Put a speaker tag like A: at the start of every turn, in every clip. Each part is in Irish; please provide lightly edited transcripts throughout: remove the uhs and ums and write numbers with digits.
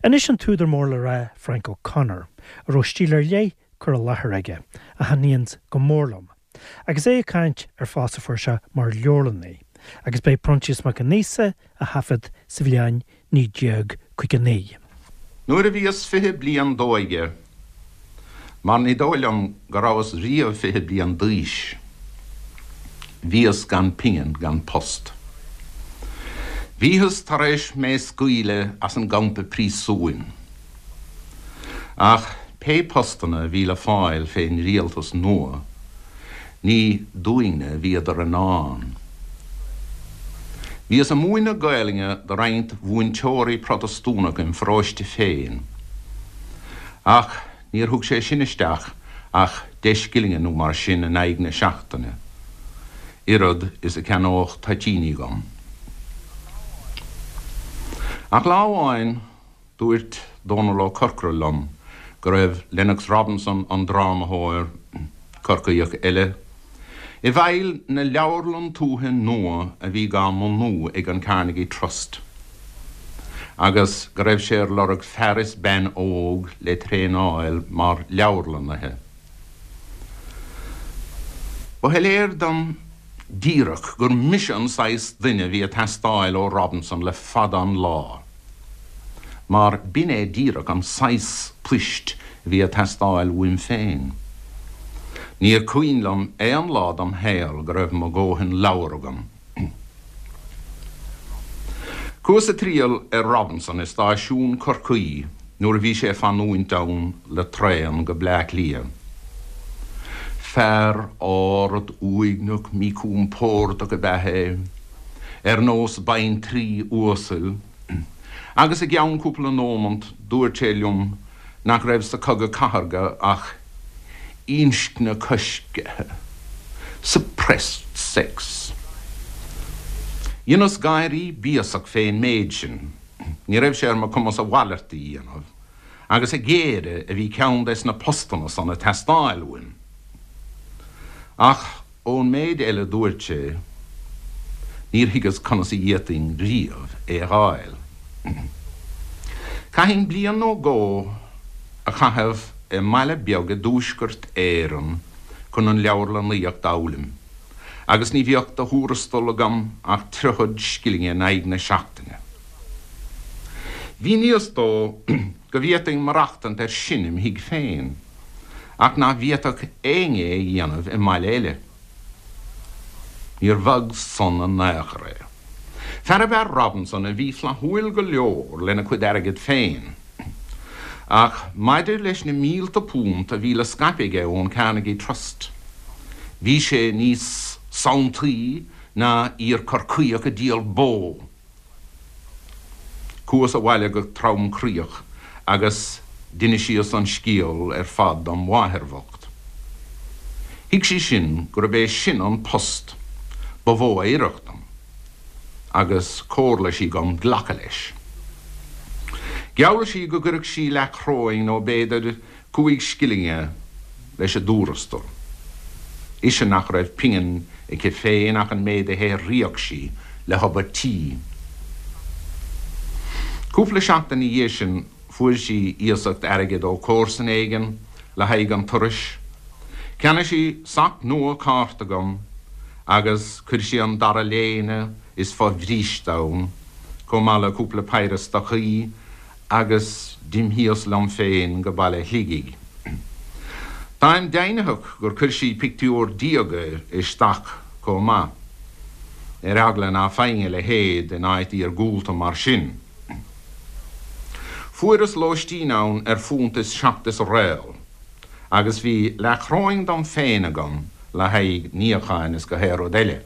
A: Anois an t-údar mór le rá Frank O'Connor, a raibh stíl ar leith cur i láthair aige, a thaitníonns go mór liom, agus é ag caint ar phost a fuair sé mar leabharlannaí, agus b'é Proinsias Mac an Íosa a thaifead sa bhliain 1959.
B: Nuair a bhíos 20 bliain d'óige, mar ní dóigh liom go rabhas riamh 20 bliain d'aois, bhíos gan pingin gan post. Bhíothas tar éis mé scaoileadh as an gcampa príosúin. Ach pé postanna a bhí le fáil fén rialtas nua, ní dúinne a bhíodar i ndán. Bhíos ag múineadh Gaelainne do roinnt mhúinteoirí Protastúnacha im pharóiste féin, ach níor thug sé sin isteach ach deich scillinge nó mar sin in aghaidh na seachtaine, oiread is a cheannódh toitíní dhom. Ach lá amháin, Dúirt Dónall Ó Corcora liom go raibh Lennox Robinson, an drámathóir, Corcaíoch eile, i bhfeighil na leabharlann tuaithe nua a bhí dhá mbunú ag an Carnegie Trust agus go raibh sé ar lorg fear is bean óg le traenáil mar leabharlannaithe. Ba shoiléir dom díreach gur mise an saghas duine a bhí ag teastáil ó Robinson le fada an lá, mar b'in é díreach an saghas poist a bhí ag teastáil uaim féin. Níor cuimhin liom aon lá dom shaol go raibh mo dhóthain leabhar agam. Chuas ag triall ar Robinson i stáisiún Chorcaí nuair a bhí sé ag fanúint ann le traen go Bleá Cliath. Fear ard uaigneach míchompordach ab ea é, ar nós baintrí uasail, agus i gceann cúpla nómant dúirt sé liom nach raibh sa Chogadh Cathartha ach inscne coiscthe, suppressed sex. Dheineas gáirí béasach fén méid sin, ní raibh sé ar mo chumas a mhalairt a dhéanamh, agus a ghéire a bhí ceann des na postanna san ag teastáil uaim. Ach ón méid eile dúirt sé, níor thuigeas conas a d'fhéadfainn riamh é a dh'fháil. Chaithfinn bliain nó dhó a chaitheamh i mbaile beag i dTuaisceart Éireann chun an leabharlannaíocht d'fhoghlaim, agus ní bheadh de thuarastal agam ach triochad scillinge in aghaidh na seachtaine. Mhíníos dó go bhféadfainn maireachtaint air sin im thigh féin, ach nach bhféadfadh éinne é a dhéanamh i mbaile eile. Níor bhog san in aon chor é. Fear ab ea Robinson a bhí flaithiúil go leor lena chuid airgid féin, ach maidir leis na mílte punt a bhí le scaipeadh aige ón Carnegie Trust, bhí sé níos sanntaí ná iar-Chorcaíoch ag díol bó. Chuas abhaile go tromchroíoch agus d'inisíos an scéal ar fad dom mháthair bhocht. Thuig sí sin gurb é sin an post ba mhó a oirfeadh dom agus chomhairligh sí dhom glacadh leis. Gheall sí go gcuirfeadh sí leathchoróin nó b'fhéidir 5 scillinge leis an dtuarastal. Ise nach raibh pingin aici féin ach an méid a shaothraíodh sí le hobair tí. Cúpla seachtain ina dhiaidh sin fuair sí iasacht airgid ó chomharsan éigin le haghaidh an turais. Cheannaigh sí sac nua cárta dhom agus chuir sí an dara léine is fo-bhríste ann, chomh maith le cúpla péire stocaí agus d'imthíos liom féin go baile Shligigh. Táim deimhnitheach gur chuir sí pictiúr diaga i stac chomh maith, ar eagla ná faighinn a leithéid in áit iargúlta mar sin. Fuaireas lóistín ann ar phunt is seacht is réal, agus bhí leathchoróin dom féin agam le haghaidh níocháin is gach aon rud eile.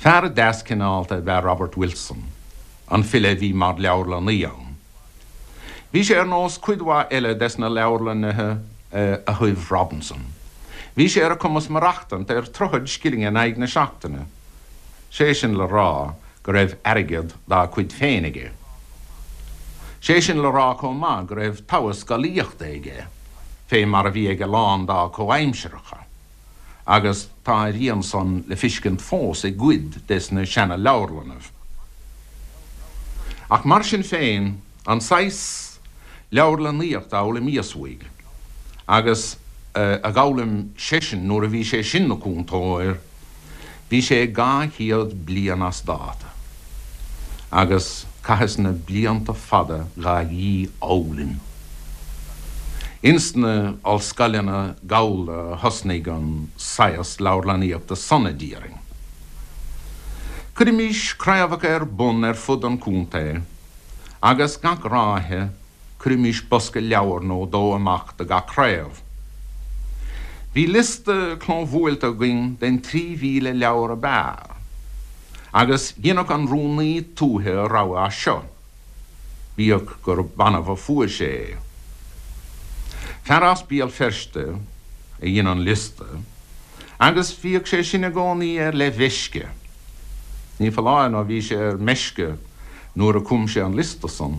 B: Fear deas cineálta ab ea Robert Wilson, an file a bhí mar leabharlannaí ann. Bhí sé ar nós cuid mhaith eile des na leabharlannaithe a thoibh Robinson. Bhí sé ar a chumas maireachtaint ar triochad scillinge in aghaidh na seachtaine, sé sin le rá go raibh airgead dá chuid féin aige. Sé sin le rá chomh maith go raibh togha scolaíochta aige, fé mar a bhí ag a lán dá chomhaimsireacha. agus tá a rian san le fiscint fós i gcuid des na seana-leabharlannaibh. Ach mar sin féin, an saghas leabharlannaíochta a fhoghlaimíos uaidh, agus a dh'fhoghlaim seisean nuair a bhí sé sin 'na cúntóir, bhí sé 200 bliain as dáta, agus chaitheas na blianta fada dhá dhífhoghlaim. Ins na ollscoileanna Gallda a thosnaigh an saghas leabharlannaíochta san, a déarfainn. Cuirimís craobhacha ar bun ar fud an chontae agus gach ráithe cuirimís bosca leabhar nó dó amach do gach craobh. Bhí liosta clóbhuailte againn den 3,000 leabhar ab fhearr agus dheineadh an rúnaí tuaithe a rogha as seo, bíodh gur b'annamh a fuair sé é. Fear as Béal Feirste a dhein an liosta agus bhíodh sé sin i gcónaí ar leathmheisce. Ní foláir nó bhí sé ar meisce nuair a chum sé an liosta san.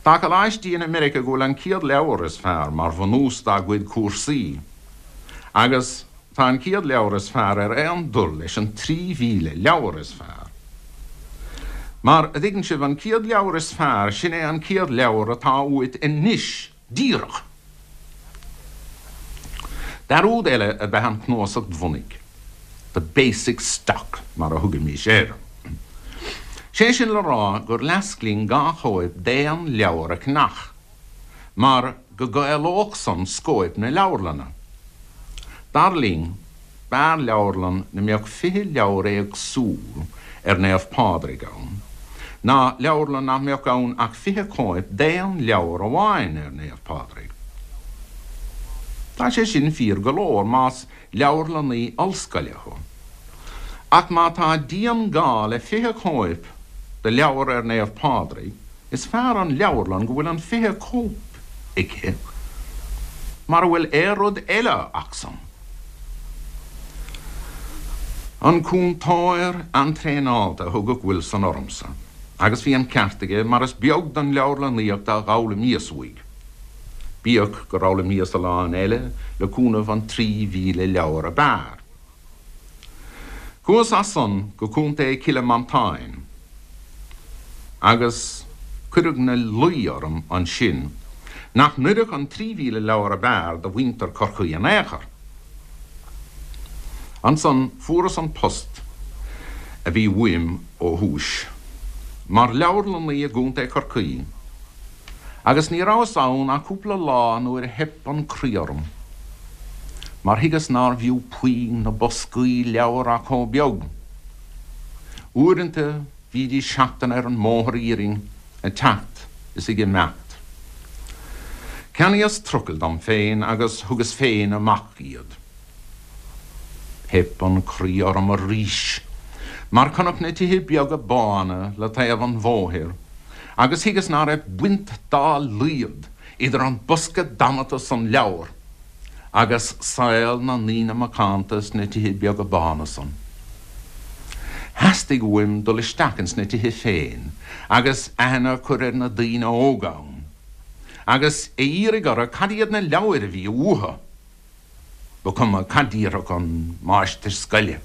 B: Tá coláistí in America go bhfuil an chéad leabhar is fearr mar bhunús dá gcuid cúrsaí agus tá an chéad leabhar is fearr ar aon dul leis an 3,000 leabhar is fearr. Mar, a dtuigeann sibh, an chéad leabhar is fearr, sin é an chéad leabhar atá uait anois díreach. Dearúd eile ab ea an chnuasacht bhunaidh, the basic stock mar a thugaimís air. Sé sin le rá gur leasc linn dhá chóip d'aon leabhar a cheannach, mar go gcaolódh san scóip na leabharlainne. Dar linn, B'fhearr leabharlann 'na mbeadh 20 leabhar éagsúil ar Naomh Pádraig ann, ná leabharlann nach mbeadh ann ach 20 cóip d'aon leabhar amháin ar Naomh Pádraig. Tá sé sin fíor go leor más leabharlannaí ollscoile thú. Ach má tá dian-ghá le 20 cóip de leabhar ar Naomh Pádraig, Is fearr an leabharlann go bhfuil an 20 cóip aici mara bhfuil aon rud eile acusan. An cúntóir an-traenáilte a thugadh Wilson ormsa, agus bhí an ceart aige mar is beag den leabharlannaíocht a dh'fhoghlaimíos uaidh, bíodh gur fhoghlaimíos a lán eile le cúnamh an 3,000 leabhar ab fhearr. Chuas as san go Contae Chille Mantáin agus cuireadh 'na luí orm ansin nach n-oirfeadh an 3,000 leabhar ab fhearr do mhuintir Chorcaí in aon chor. Ansan fuaras an post a bhí uaim ó thúis, mar leabharlannaí i gContae Chorcaí. Agus ní rabhas ann ach cúpla lá nuair a theip an croí orm, mar thuigeas nárbh fhiú puinn na boscaí leabhar ach chomh beag. Uaireanta bhídís seachtain ar an mbóthar iarainn ag teacht is ag imeacht. Cheannaíos trucail dom féin agus thugas féin amach iad. Theip an croí orm arís mar chonac na tithe beaga bána le taobh an bhóthair agus thuigeas ná raibh baint dá laghad idir an bosca damanta san leabhar agus saol na ndaoine macánta sna tithe beaga bána san. Theastaigh uaim dul isteach ins na tithe féin agus aithne a chur ar na daoine óga ann agus a iarraidh orthu cad iad na leabhair a bhí uathu. Ba chuma cad déarfadh an máistir scoile.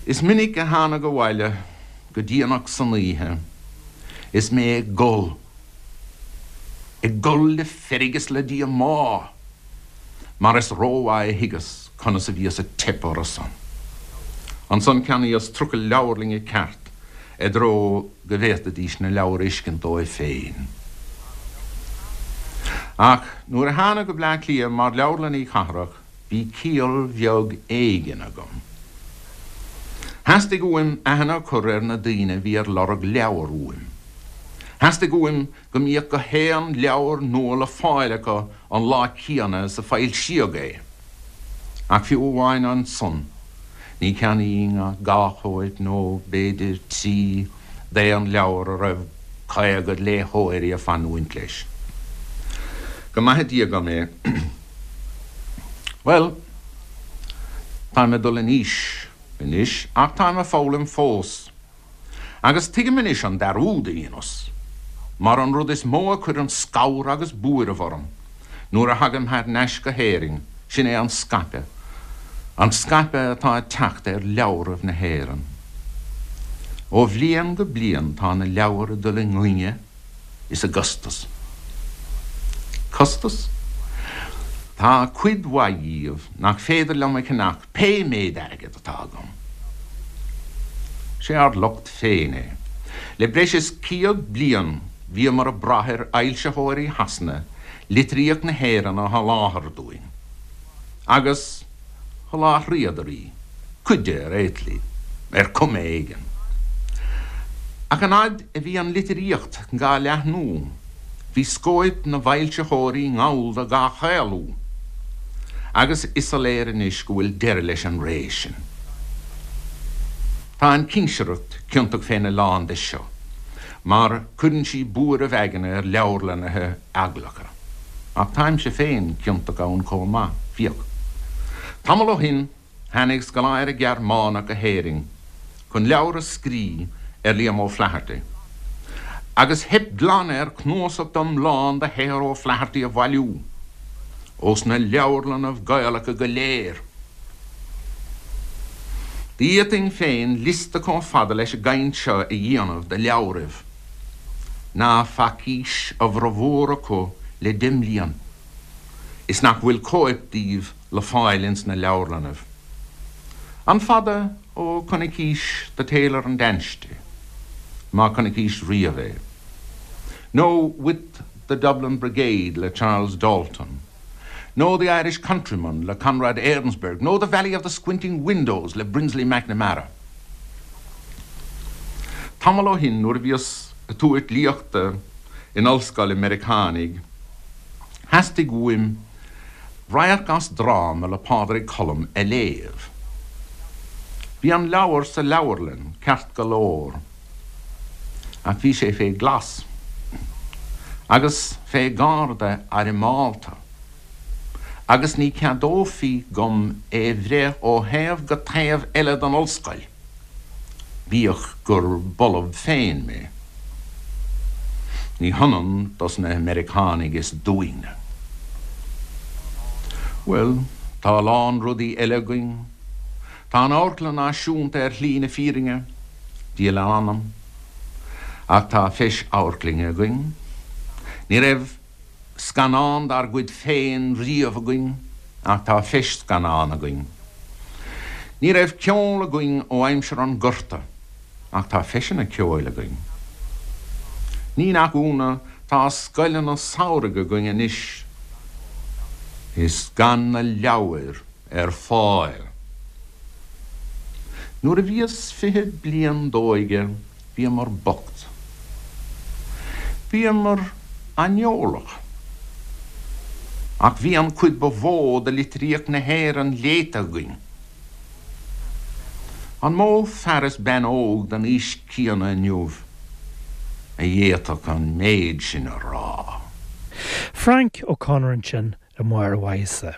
B: Is minic a thánag abhaile go déanach san oíche is mé ag gol, ag gol le feirg is le díomá, mar is rómhaith a thuigeas conas a bhíos ag teip orthusan. Ansan cheannaíos trucail leabharlainne ceart i dtreo go bhféadfaidís na leabhair a fheiscint dóibh féin. Ach nuair a thánag go Bleá Cliath mar leabharlannaí cathrach bhí ciall bheag éigin agam. Theastaigh uaim aithne a chur ar na daoine a bhí ar lorg leabhar uaim. Theastaigh uaim go mbíodh gach aon leabhar nua le fáil acu an lá céanna is a foilsíodh é. Ach fiú amháin ansan, ní cheannaínn ach dhá chóip nó b'fhéidir trí d'aon leabhar a raibh 50 léitheoirí ag fanúint leis. Go maithe Dia dhom é. Bhuel, táim ag dul in aois anois ach táim ag foghlaim fós. Agus tuigim anois an dearúd a dheineas, mar an rud is mó a chuireann scamhar agus buaireamh orm nuair a thagaim thar n-ais go hÉirinn, sin é an scaipeadh, an scaipeadh atá ag teacht ar leabhraibh na hÉireann. Ó bhliain go bliain tá na leabhair ag dul i ngainne is i gcostas. Costas? Tá cuid mhaith dhíobh nach féidir liom a cheannach pé méid airgid atá agam. Sé ár locht féin é. Le breis is 100 bliain bhíomar ag brath ar fhoilsitheoirí Shasana litríocht na hÉireann a sholáthar dúinn. Agus. Sholáthraíodar í, cuid de ar aon tslí, ar chuma éigin. Ach an fhaid a bhí an litríocht dhá leathnú, bhí scóip na bhfoilsitheoirí nGallda dhá chaolú, agus is soiléir anois go bhfuil deireadh leis an ré sin. Tá an chinsireacht ciontach féna lán de seo, mar cuireann sí buaireamh aigne ar leabharlannaithe eaglacha. Ach táimse féin ciontach ann chomh maith, féach. Tamall ó shin tháinig scoláire Gearmánach go hÉirinn chun leabhar a scrí ar Liam O'Flaherty, agus theip glan air cnuasach iomlán de shaothar O'Flaherty a bhailiú ós na leabharlannaibh Gaelacha go léir. D'fhéadfainn féin liosta chomh fada leis an gcaint seo a dhéanamh de leabhraibh. ná facaís a bhformhór acu le deich mblian, is nach bhfuil cóip díobh le fáil ins na leabharlannaibh. An fada ó chonnaicís The Tailor and Ansty, má chonnaicís riamh é, nó With the Dublin Brigade le Charles Dalton, nó The Irish Countryman le Conrad Ainsberg, nó The Valley of the Squinting Windows le Brinsley McNamara? Tamall ó shin nuair a bhíos ag tabhairt léachta in ollscoil ag Meiriceánaigh, theastaigh uaim radharc as dráma le Pádraic Colum a léamh. Bhí an leabhar sa leabharlann, ceart go leor, ach bhí sé fé ghlas agus fé gharda armálta. agus ní ceadófaí dhom é bhreith ó thaobh go taobh eile den ollscoil, bíodh gur b'ollamh féin mé. Ní hionann dos na Meiriceánaigh is dúinne. Bhuel, tá a lán rudaí eile againn. Tá an Amharclann Náisiúnta ar shlí na fírinne, Dia lena anam, ach tá feis amharclainne againn. Ní raibh. scannán dár gcuid féin riamh againn ach tá feis-scannán againn. Ní raibh ceol againn ó aimsir an Ghorta ach tá feiseanna ceoil againn. Ní nach ionadh tá scoileanna samhraidh againn anois is gan na leabhair ar fáil. Nuair a bhíos 20 bliain d'óige Bhíomar bocht. Bhíomar aineolach. Ach bhí an chuid ba mhó de litríocht na hÉireann léite againn. An mó fear is bean óg den aois chéanna inniu a d'fhéadfadh an méid sin a rá?
A: Frank O'Connor ansin le Máire Mhaíosa.